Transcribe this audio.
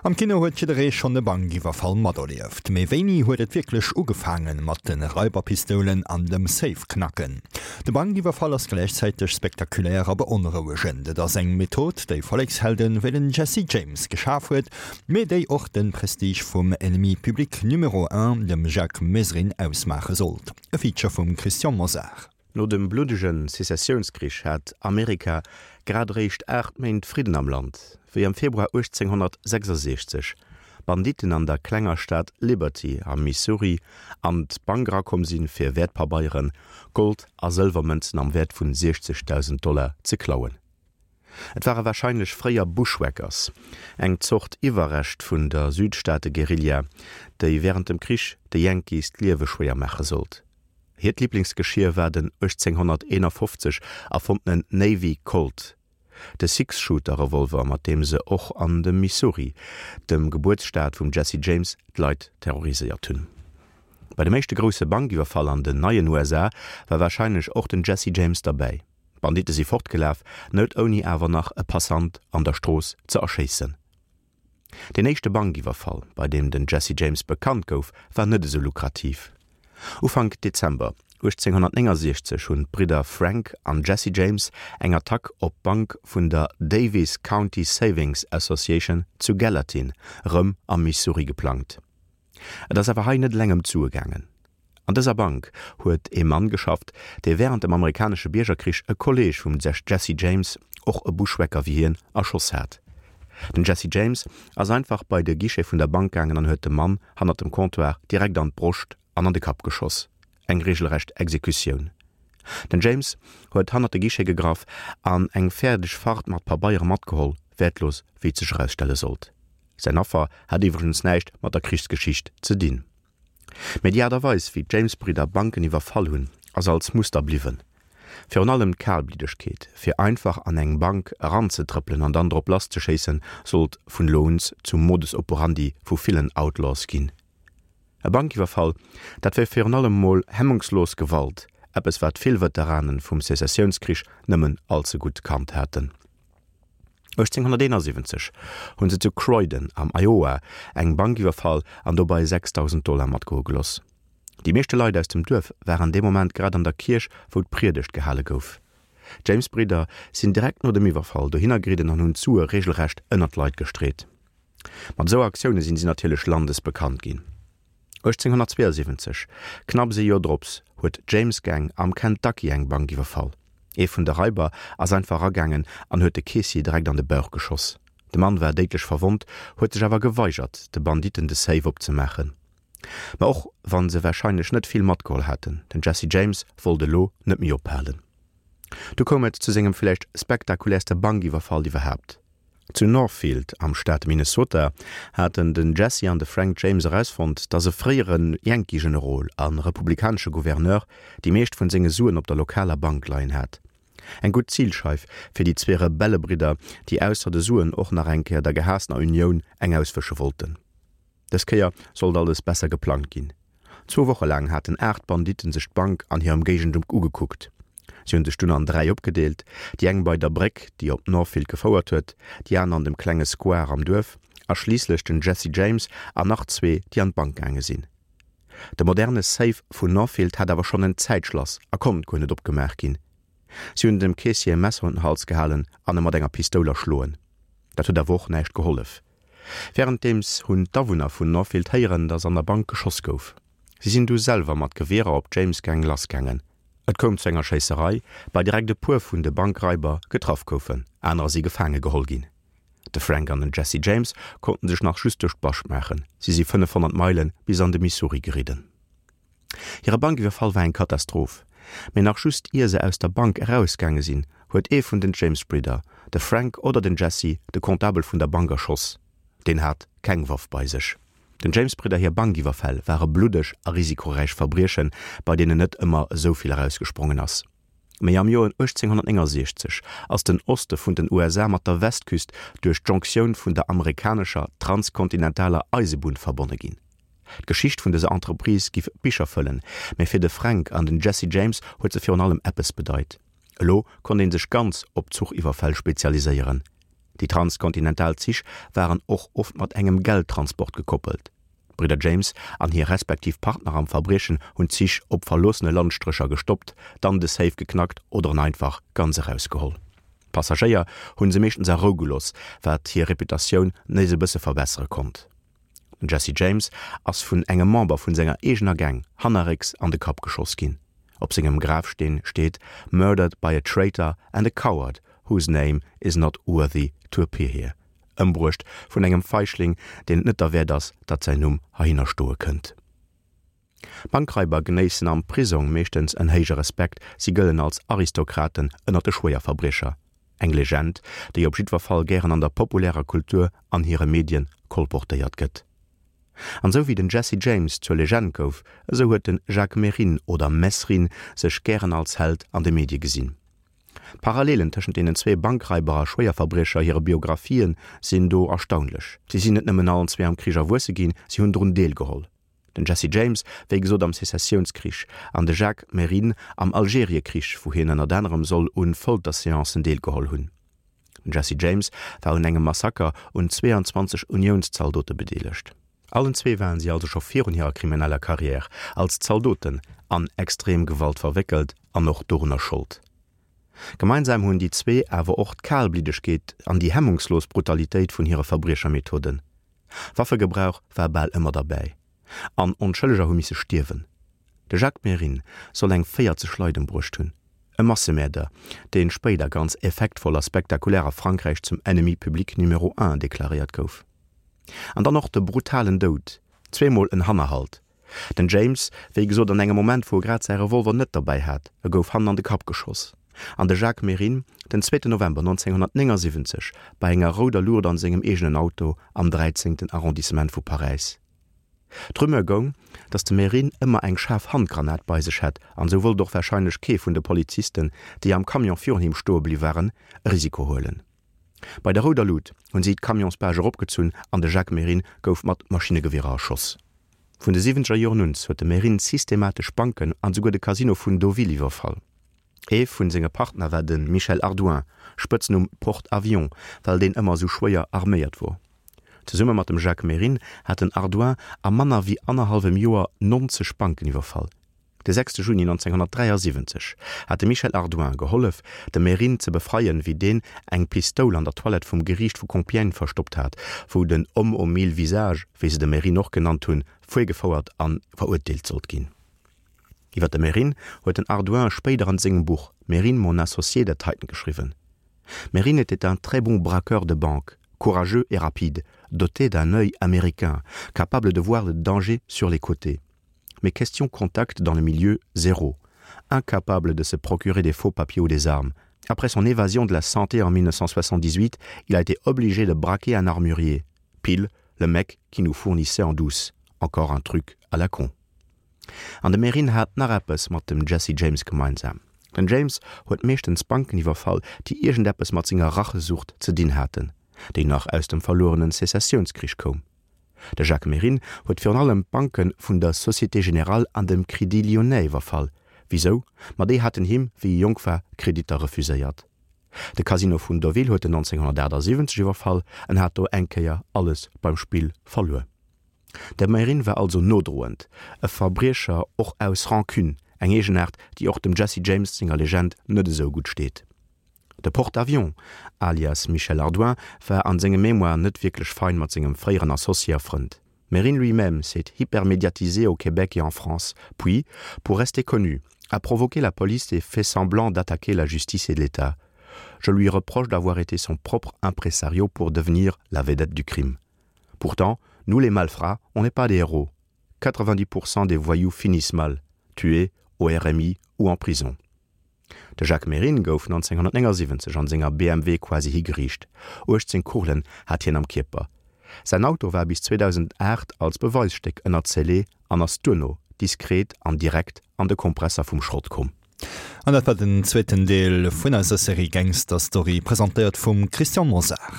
Am Kino huet jidderee schonn e Bankiwwerfall materlieft. Mee wéini huet et wierklech ugefaange mat de Raiberpistoulen an dem Safe-Knacken? De Bankiwwerfall ass gläichzäiteg spektakulär a beonrouegend. Et ass eng Method, déi Vollekshelden wéi den Jesse James geschaf huet, mee déi och de Prestige vum Ennemi public numéro un, dem Jacques Mesrine, ausmaache sollt. E Feature vum Christian Mosar. No dem bluddege Sezessiounskrich hat Amerika grad eréischt 8 Méint Fridden am Land, wéi am Februar 1866 Banditten an der klenger Stad Liberty am Missouri an d'Bank erakomm sinn, fir Wäertpabeieren, Gold a Sëlwermënzen am Wäert vun 60.000 Dollar ze klauen. Et ware warscheinlech fréier Bushwhackers, eng Zort Iwwerrescht vun der Südstaate-Guerilla, déi wärend dem Krich de Yankees d'Liewe schwéier maache sollt. Hiert Liblingsgeschier war den 1851 erfonntenen Navy Colt, de Six-Shooter-Revolver, mat deem se och an dem Missouri, dem Gebuertsstaat vum Jesse James, d'Leit terroriséiert hunn. Bei dem éischte grousse Bankiwwerfall an den neien USA war warscheinlech och den Jesse James derbäi. D'Banditte si fortgelaf, net ouni awer nach e Passant an der Strooss ze erschéissen. Deen éischte Bankiwwerfall, bei deem den Jesse James bekannt gouf, war net esou lukrativ. Ufank Dezember 1869 hunn d'Bridder Frank an Jesse James eng Attack op d'Bank vun der Daviess County Savings Association zu Gallatin, rëm am Missouri, geplangt. Et ass awer hei net eleng ëm d'Sue gaangen. An dëser Bank huet ee Mann geschafft, dee wärend dem amerikanesche Biergerkrich e Kolleeg vum Jesse James, och e Bushwhacker wéi hien, erschoss hat. Den Jesse James ass einfach bei de Guichet vun der Bank gaangen an huet dem Mann hannert dem Comptoir direkt an d'Broscht an an de Kapp geschoss. Eng regelrecht Exekutioun. Den James huet hannert de Guichet gegraff an eng fäerdeg Fart mat Pabeiere matgeholl, wäertlos wéi et sech erausstelle sollt. Säin Affer hat iwwregens näischt mat der Krichsgeschicht ze dinn. Mee déi Aart a Weis, wéi d'James-Bridder Banken iwwerfall hunn, ass als Muster bliwwen. Virun allem d'Kalbliddegkeet, fir einfach an eng Bank eranzetrëppelen an dann drop lasszeschéissen, sollt vun elo un zum Modus operandi vu villen Outlaws ginn. E Bankiwwerfall, dat wär virun allem mol hemmungslos Gewalt, eppes wat vill Veteranen vum Sezessiounskrich nëmmen allze gutt kannt haten. 1871 hunn se zu Croydon am Iowa eng Bank iwwerfall an dobei 6.000 Dollar matgoe geloss. Déi meeschte Leit aus dem Duerf waren dee Moment grad an der Kierch, wou d'Priedegt gehale gouf. D'James-Bridder sinn direkt no dem Iwwerfall dohinner geridden an hunn d'Sue reegelrecht ënner d'Leit gestreet. Mat esou Aktioune sinn si natierlech landesbekannt ginn. 1872, knapps ee Joer drops, huet d'James Gang am Kentucky eng Bank iwwerfall. Ee vun de Raiber ass einfach eragaangen an huet de Keessier direkt an de Bauch geschoss. De Mann war déidlech verwonnt, huet sech awer geweigert, de Banditten de Safe opzemaachen. Ma och wann se warscheinlech net vill matgeholl haten, den Jesse James wollt elo net méi ophalen. Du koum et zu sengem villäicht spektakuläerste Bankiwwerfall iwwerhaapt. Zu Northfield am Staat Minnesota haten den Jesse an de Frank James erausfonnt, datt e fréiere Yankee-Generol a republikanesche Gouverneur déi meescht vun senge Suen op der lokaler Bank leien hat. Eng gutt Zilscheif fir déi zwee Rebellebridder, déi ausser de Suen och nach eng Kéier der gehaassener Unioun eng auswësche wollten. Dës Kéier sollt alles besser geplangt ginn. Zwou Woche laang haten 8 Banditten sech d'Bank an hir Ëmgéigend ugekuckt. Si hunn sech dunn an 3 opgedeelt, déi eng bei der Bréck, déi op Northfield gefouert huet, déi aner an dem klenge Square am Duerf a schliisslech den Jesse James an nach zwee, déi an d'Bank gaange sinn. De moderne Safe vun Northfield hat awer schonn en Zäitschlass a konnt guer net opgemaach ginn. Si hunn dem Keessier e Messer un den Hals gehalen an e mat enger Pistoul erschloen. Dat huet awer och näischt gehollef. Wärenddeems hunn d'Awunner vun Northfield héieren, datt an der Bank geschoss gouf. Si sinn du selwer mat Gewierer op d'James Gang lassgaangen. Et koum zu enger Schéisserei, bei direkt e puer vun de Bankraiber getraff goufen, anerer si gefaange geholl ginn. De Frank an den Jesse James konnten sech nach just duerch d'Bascht maachen. Si si 500 Meile bis an de Missouri geridden. Hire Bankiwwerfall war eng Katastroph, mee nach just ier se aus der Bank erausgaange sinn, huet ee vun den James-Bridder, de Frank oder den Jesse, de Comptabel vun der Bank erschoss. Deen hat keng Waff bei sech. Den James-Bridder hir Bankiwwerfäll ware bluddeg a risikoräich Verbriechen, bei deenen net ëmmer esou vill erausgesprongen ass. Mee am Joer 1869 ass den Oste vun den USA mat der Westküst duerch d'Jonctioun vun der amerikanescher transkontinentaler Eisebunn verbonne ginn. D'Geschicht vun dëser Entreprise giff Bicher fëllen, mä fir de Frank an den Jesse James huet se virun allem eppes bedeit, Elo konnt een sech ganz op Zuchiwwerfäll spezialiséieren. Déi transkontinental Zich waren och oft mat engem Geldtransport gekoppelt. D'Bridder James an hir respektiv Partner am Verbriechen hunn d'Zich op verloossene Landstrécher gestoppt, dann de Safe geknackt oder en einfach ganz erausgeholl. D'Passagéier hunn se meeschtens a Rou gelooss, wat hir Reputatioun nees e bësse verbessere konnt. Den Jesse James ass vun engem Member vun senger eegener Gang hannerrécks an de Kapp geschoss ginn. Op sengem Grafsteen steet Murdered by a traitor and a coward whose name is not worthy to appear here, Ëmbruecht vun engem Feichling, deen et net derwäert ass, datt säin Numm heihinner stoe kënnt. Bankraiber genéissen am Prisong meeschtens en héije Respekt, si gëllen als Aristokraten ënner de Schwéierverbriecher. Eng Legend, déi op jiddwer Fall gären an der populärer Kultur an hire Medien kolportéiert gëtt. An esou wéi den Jesse James zur Legend gouf, esou huet de Jacques Mesrine oder Mesrine sech gären als Held an de Medie gesinn. D'Parallelen tëschent deenen zwee Bankraiber a Schwéierverbriecher hire Biographien sinn do erstaunlech. Si sinn net nëmmen allen zwee am Krich erwuesse ginn, si hunn drun deelgeholl. Den Jesse James, wéi gesot am Sezessiounskrich, an de Jacques Mesrine am Algeriekrich, wou hien ënnert anerem soll un Folterseancen deelgeholl hunn. Den Jesse James war un engem Massaker un 22 Uniounszaldote bedeelegt. Allen zwee waren si also scho virun hirer krimineller Karriär als Zaldoten an extrem Gewalt verwéckelt an och dorunner Schold. Gemeinsam hunn déi zwee awer och d'Kalbliddegkeet an déi hemmungslos Brutalitéit vun hire Verbriechermethoden. Waffegebrauch war bal ëmmer derbäi an Onschëlleger hu misse stierwen. De Jacques Mesrine soll eng 40 Leit embruecht hunn. E Massemäerder, dee spéider ganz effektvoll a spektakulär a Frankräich zum Ennemi public numéro un deklaréiert gouf. An dann och de brutalen Doud, zweemol en Hannerhalt. Den James, wéi gesot an engem Moment wou e grad säi Revolver net derbäi hat, e gouf hannen an de Kapp geschoss. An de Jacques Mesrine, den zweeten November 1979 bei enger rouder Luucht an sengem eegenen Auto am dräizéngten Arrondissement vu Paräis. D'Rumeur goung, datt de Mesrine ëmmer eng schaarf Handgranat bei sech hätt an esou wollt och warscheinlech kee vun de Polizisten, déi am Camion virun him stoe bliww waren, e Risiko huelen. Bei der rouder Lut hunn si d'Camionsbâche eropgezunn an de Jacques Mesrine gouf mat Maschinnegewierer erschoss. Vun de siwwenzeger Joren un huet de Mesrine systematesch Banken an esouguer de Casino vun Deauville iwwerfall. Ee vun senge Partner war de Michel Ardouin, Spëtznumm Porte-Avions, well deen ëmmer esou schwéier arméiert wor. Zesumme mat dem Jacques Mesrine hat den Ardouin a manner wéi annerhallwem Joer 90 Banken iwwerfall. De 6 Juni 1973 hat de Michel Ardouin gehollef, de Mesrine ze befreien, wéi deen eng Pistoul an der Toilette vum Geriicht vu Compiègne verstoppt hat, wou den Homme aux mille visages, wéi se de Mesrine och genannt hunn, virgefouert a verurteelt sollt ginn. Iwwer de Mesrine huet den Ardouin spéider an sengem Buch Mesrine, mon associé dat heiten geschriwwen, Mesrine était un très bon braqueur de banque, courageux et rapide, doté d'un œil américain, capable de voir le danger sur les côtés. Mais question contact dans le milieu, zéro. Incapable de se procurer des faux papiers ou des armes. Après son évasion de la santé en 1978, il a été obligé de braquer un armurier. Pile, le mec qui nous fournissait en douce. Encore un truc à la con. An de Mesrine hat nach eppes mat dem Jesse James gemeinsam. Den James huet meeschtens Banken iwwerfall, déi iergendeppes mat senger Rachesucht ze dinn haten, déi nach aus dem verluerenen Sezessiounskrich koum. De Jacques Mesrine huet virun allem d'Banke vun der Société Générale an dem Crédit Lyonnais iwwerfall. Wisou? Ma déi haten him, wéi e jonk war, Kreditter refuséiert. De Casino vun Deauville huet en 1978 iwwerfall, en hat do eng Kéier alles beim Spill verluer. De Mesrine war also nodroend e Verbriecher, och aus Rancune, eng Eegenaart, déi och dem Jesse James senger Legend net esou gutt steet. De Porte-avions, alias Michel Ardouin, war an senge Mémoiren net wierklech fein mat sengem fréieren Associé a Frënd. Mesrine lui-même s'est hypermédiatisé au Québec et en France, puis, pour rester connu, a provoqué la police et fait semblant d'attaquer la justice et l'État. Je lui reproche d'avoir été son propre impresario pour devenir la vedette du crime. Pourtant, nous les malfrats, on n'est pas des héros. 90% des voyous finissent mal, tués au RMI ou en prison. De Jacques Mesrine gouf 1979 an senger BMW quasi higeriicht. 18 Kugelen hat hien am Kierper. Säin Auto war bis 2008 als Beweisstéck ënner Scellé an ass duerno diskret an direkt an de Kompresser vum Schrott komm. An dat war den zweeten Deel vun eiser Serie Gangster Story, presentéiert vum Christian Mosar.